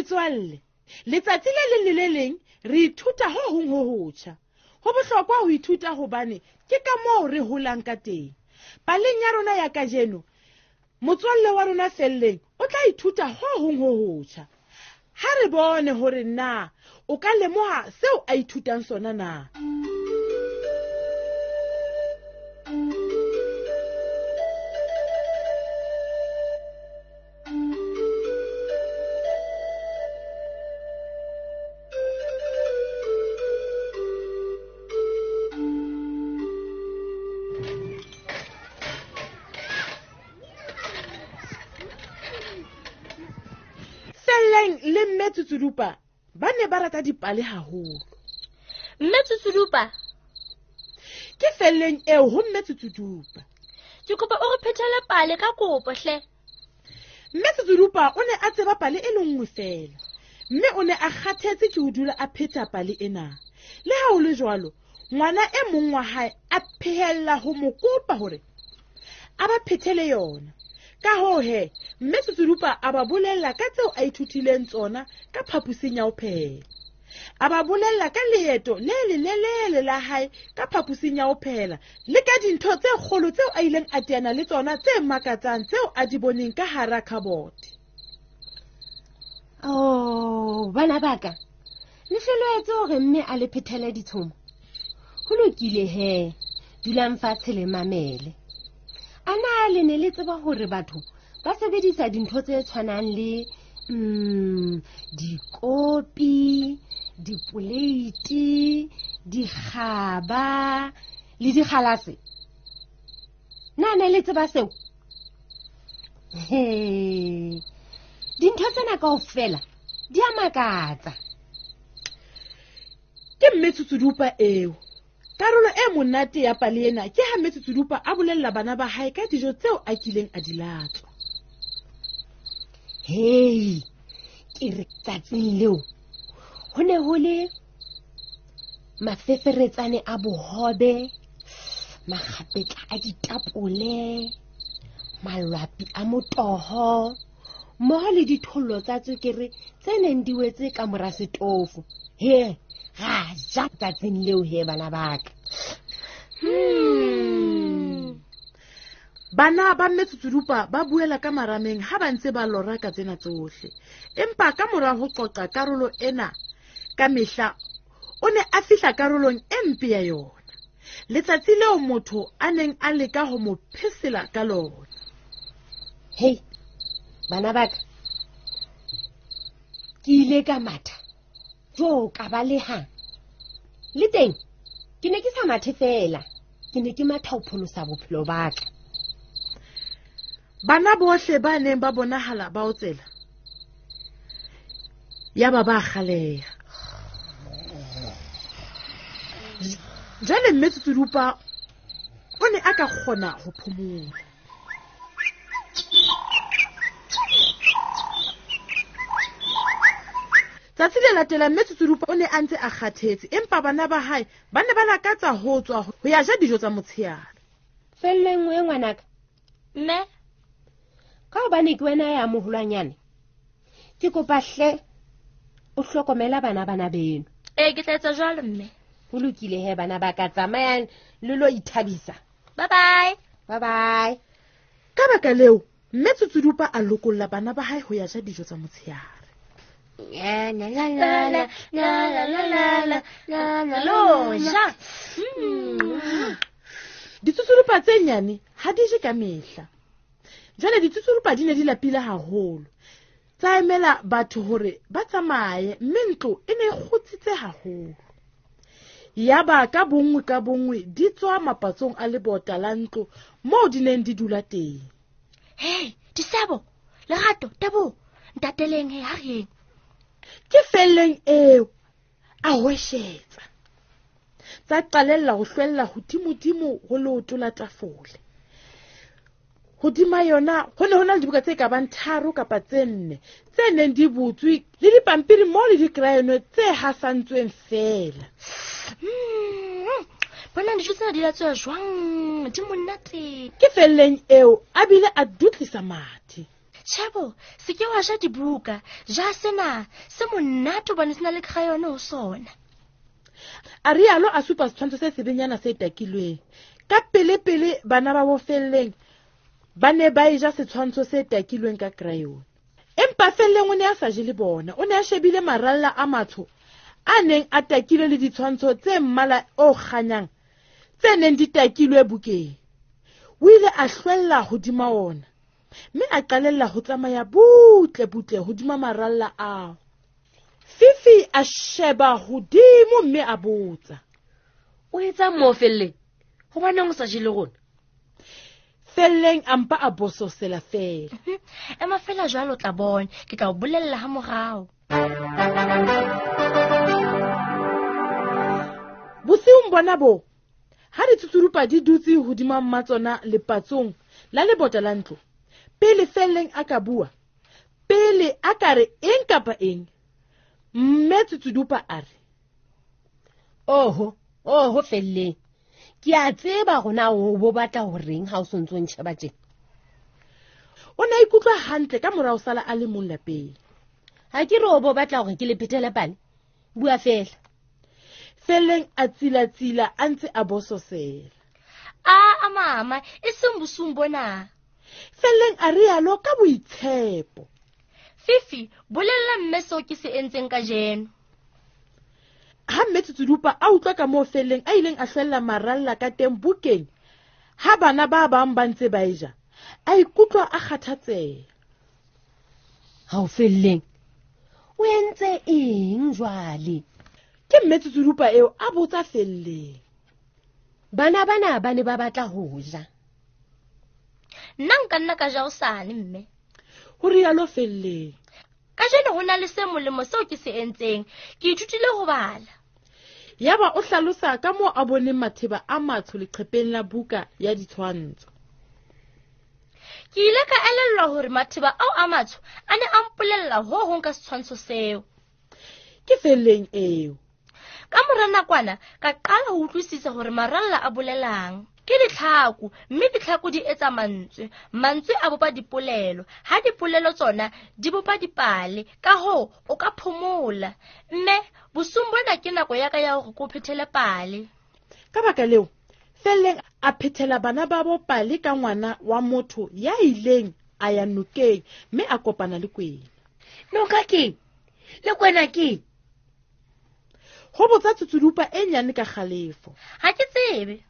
Metswalle, letsatsi le leng le le leng re ithuta ho hong ho hotjha. Ho bohlokwa ho ithuta hobane ke ka moo re holang ka teng. Paleng ya rona ya kajeno, motswalle wa rona Felleng o tla ithuta ho hong ho hotjha. Ha re bone hore na o ka lemoha seo a ithutang sona na. Felleng le Mme Tsutsudupa ba ne ba rata dipale haholo. Mme Tsutsudupa? Ke Felleng eo ho Mme Tsutsudupa. Ke kopa o re phethele pale ka kopo hle. Mme Tsutsudupa o ne a tseba pale e le nngwe feela, mme o ne a kgathetse ke ho dula a pheta pale ena. Le ha ho le jwalo, ngwana e mong wa hae a phehella ho mo kopa hore a ba phethele yona. Ka hoo he, Mme Tsutsudupa a ba bolella ka tseo a ithutileng tsona ka phaposing ya ho phehela. A ba bolella ka leeto le lelelele la hae ka phaposing ya ho phehela le ka dintho tse kgolo tseo a ileng a teana le tsona tse makatsang tseo a di boneng ka hara khabote. Oh, bana ba ka, le hloloetse hore mme a le phethele ditshomo. Ho lokile he, dulang fatshe le mamele. A na le ne le tseba hore batho ba sebedisa dintho tse tshwanang le dikopi, dipoleiti, dikgaba le dikgalase? Na ne le tseba seo? He, dintho tsena kaofela di a makatsa. Ke Mme Tsutsudupa eo. Karolo e monate ya pale ena ke ha Mme Tsutsudupa a bolella bana ba hae ka dijo tseo a kileng a di latswa. Hei, ke re tsatsing leo ho ne ho le mafeferetsane a bohobe, makgapetla a ditapole, malwapi a motoho, mmoho le dithollo tsa tswekere tse neng di wetse ka mora setofo. He, ra ja tsatsing leo he bana ba ka. Bana ba Mme Tsutsudupa ba buela ka marameng ha ba ntse ba lora ka tsena tsohle. Empa ka mora ho qoqa karolo ena ka mehla, o ne a fihla karolong e mpe ya yona. Letsatsi leo motho a neng a leka ho mo phesela ka lona. Hei, bana ba ka, ke ile ka matha jo ka baleha. Le teng ke ne ke sa mathe feela, ke ne ke matha ho pholosa bophelo ba ka. Bana bohle ba neng ba bonahala ba otsela, yaba ba kgaleha. Jwale Mme Tsutsudupa o ne a ka kgona ho phomola. Tsatsi le latelang Mme Tsutsudupa o ne a ntse a kgathetse, empa bana ba hae ba ne ba lakatsa ho tswa ho ya ja dijo tsa motsheare. Felleng we ngwanaka. Mme? Ka hobane ke wena ya moholwanyane, ke kopa hle o hlokomela bana bana beno. Ee, ke tla etsa jwalo mme. Ho lokile he bana ba ka, tsamayang le lo ithabisa. Bye bye. Bye bye. Ka baka leo, Mme Tsutsudupa a lokolla bana ba hae ho ya ja dijo tsa motsheare. La, la, la, la, la, la, la, la, la, la, la, lo ja. Ditsutsudupa tse nyane ha di je ka mehla. Jwale ditsutsudupa di ne di lapile haholo. Tsa emela batho hore ba tsamaye, mme ntlo e ne e kgutsitse haholo. Yaba ka bonngwe ka bonngwe di tswa mapatsong a lebota la ntlo moo di neng di dula teng. Hei, Disebo, Lerato, Teboho, ntateleng he, ha re yeng. Ke Felleng eo, a hweshetsa. Tsa qalella ho hlwella hodimodimo ho leoto la tafole. Hodima yona ho ne ho na le dibuka tse ka bang 3 kapa tse 4 tse neng di butswe le dipampiri mo le dikrayone tse hasantsweng feela. Bona dijo tsena di latswa jwang? Di monate. Ke Felleng eo a bile a dutlisa mathe. Tjhebo, se ke wa ja dibuka, ja sena, se monate hobane se na le crayon ho sona. A rialo a supa setshwantsho se sebenyana se takilweng. Ka pelepele bana ba bo Felleng ba ne ba e ja setshwantsho se takilweng ka crayon. Empa Felleng o ne a sa je le bona, o ne a shebile maralla a matsho a neng a takilwe le ditshwantsho tse mmala o kganyang tse neng di takilwe bukeng. O ile a hlwella hodima ona mme a qalella ho tsamaya butle butle hodima maralla ao. Fifi a sheba hodimo mme a botsa, o etsang moo Felleng? Hobaneng o sa je le rona? Felleng a mpa a bososela feela. Ema fela jwalo o tla bona, ke tla o bolella ha morao. Bosiung bona bo, ha ditsutsirupa di dutse hodima mmatsona lepatsong la lebota la ntlo, pele Felleng a ka bua, pele a ka re eng kapa eng, mme Tsutsudupa a re, Oho, oho Felleng, ke a tseba rona o bo batla ho reng ha o sontso o ntjheba tjena. O ne a ikutlwa hantle ka morao sala a le mong lapeng. Ha ke re o bo batla hore ke le phethele pale, bua fela. Felleng a tsilatsila a ntse a bososela. A mama, e seng bosiung bona. Felleng a rialo ka boitshepo. Fifi, bolella mme seo ke se entseng kajeno. Ha mme Tsutsudupa a utlwa ka moo Felleng a ileng a hlwella maralla ka teng bukeng, ha bana ba bang ba ntse ba e ja, a ikutlwa a kgathatseha. Ha o Felleng, o entse eng jwale? Ke mme Tsutsudupa eo a botsa Felleng. Bana bana ba ne ba batla ho ja. Nna nka nna ka ja hosane, mme. Ho rialo Felleng. Kajeno ho na le se molemo seo ke se entseng. Ke ithutile ho bala. Yaba o hlalosa ka moo a boneng matheba a matsho leqhepeng la buka ya ditshwantsho. Ke ile ka elellwa hore matheba ao a matsho a ne a mpolella ho hong ka setshwantsho seo. Ke Felleng eo. Ka mora nakwana ka qala ho utlwisisa hore maralla a bolelang. Ke ditlhaku, mme ditlhaku di etsa mantswe. Mantswe a bopa dipolelo, ha dipolelo tsona di bopa dipale. Ka hoo o ka phomola. Mme bosiung bona ke nako ya ka ya hore ke o phethele pale. Ka baka leo, Felleng a phethela bana babo pale ka ngwana wa motho ya ileng a ya nokeng mme a kopana le kwena. Noka keng? Le kwena keng? Ho botsa Tsutsudupa e nyane ka kgalefo. Ha ke tsebe.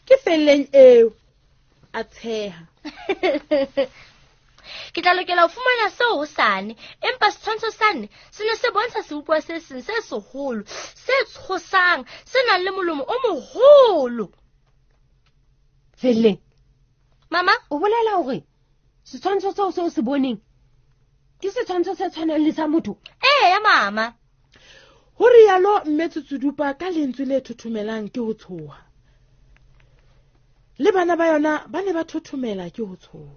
Ke Felleng eo, a tsheha. Ke tla lokela ho fumana seo hosane, empa setshwantsho sane se ne se bontsha sebopuwa se seng se seholo, se tshosang, se nang le molomo o moholo. Felleng. Mama, o bolela hore setshwantsho seo se o se boneng ke setshwantsho se tshwanang le sa motho? Eya, mama. Ho rialo mme Tsutsudupa ka lentswe le thothomelang ke ho tshoha. Le bana ba yona ba ne ba thothomela ke ho tshoha.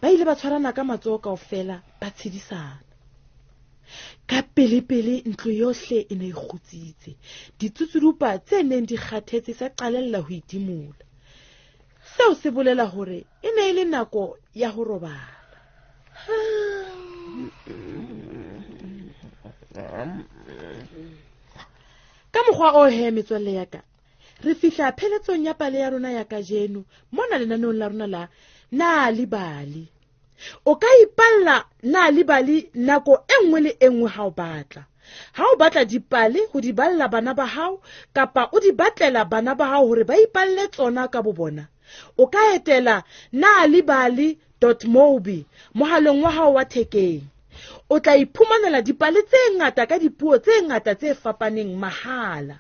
Ba ile ba tshwarana ka matsoho kaofela, ba tshedisana. Ka pelepele ntlo yohle e ne e kgutsitse. Ditsutsudupa tse neng di kgathetse tsa qalella ho itimola. Seo se bolela hore e ne e le nako ya ho robala. Ka mokgwa o he metswalle ya ka, re fihla pheletsong ya pale ya rona ya kajeno mona lenaneong la rona la Nal'ibali. O ka ipalla Nal'ibali nako e nngwe le e nngwe ha o batla. Ha o batla dipale ho di balla bana ba hao kapa o di batlela bana ba hao hore ba ipalle tsona ka bo bona, o ka etela nalibali.mobi mohaleng wa hao wa thekeng. O tla iphumanela dipale tse ngata ka dipuo tse ngata tse fapaneng mahala.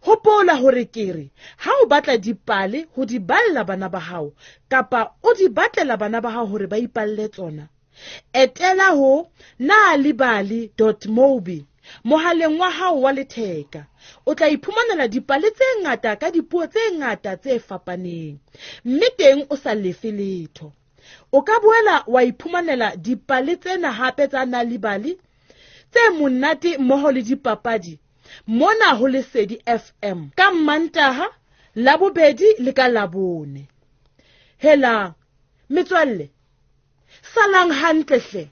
Hopola hore ke re ha o batla dipale ho di balla bana ba hao kapa o di batlela bana ba hao hore ba ipalle tsona, etela ho nalibali.mobi mohaleng wa hao wa letheka. O tla iphumanela dipale tse ngata ka dipuo tse ngata tse fapaneng, mme teng o sa lefe letho. O ka boela wa iphumanela dipale tsena hape tsa Nal'ibali tse monate mmoho le dipapadi mona ho Lesedi FM ka Mantaha, Labobedi le ka Labone. Hela metswalle, Salang hantle hle.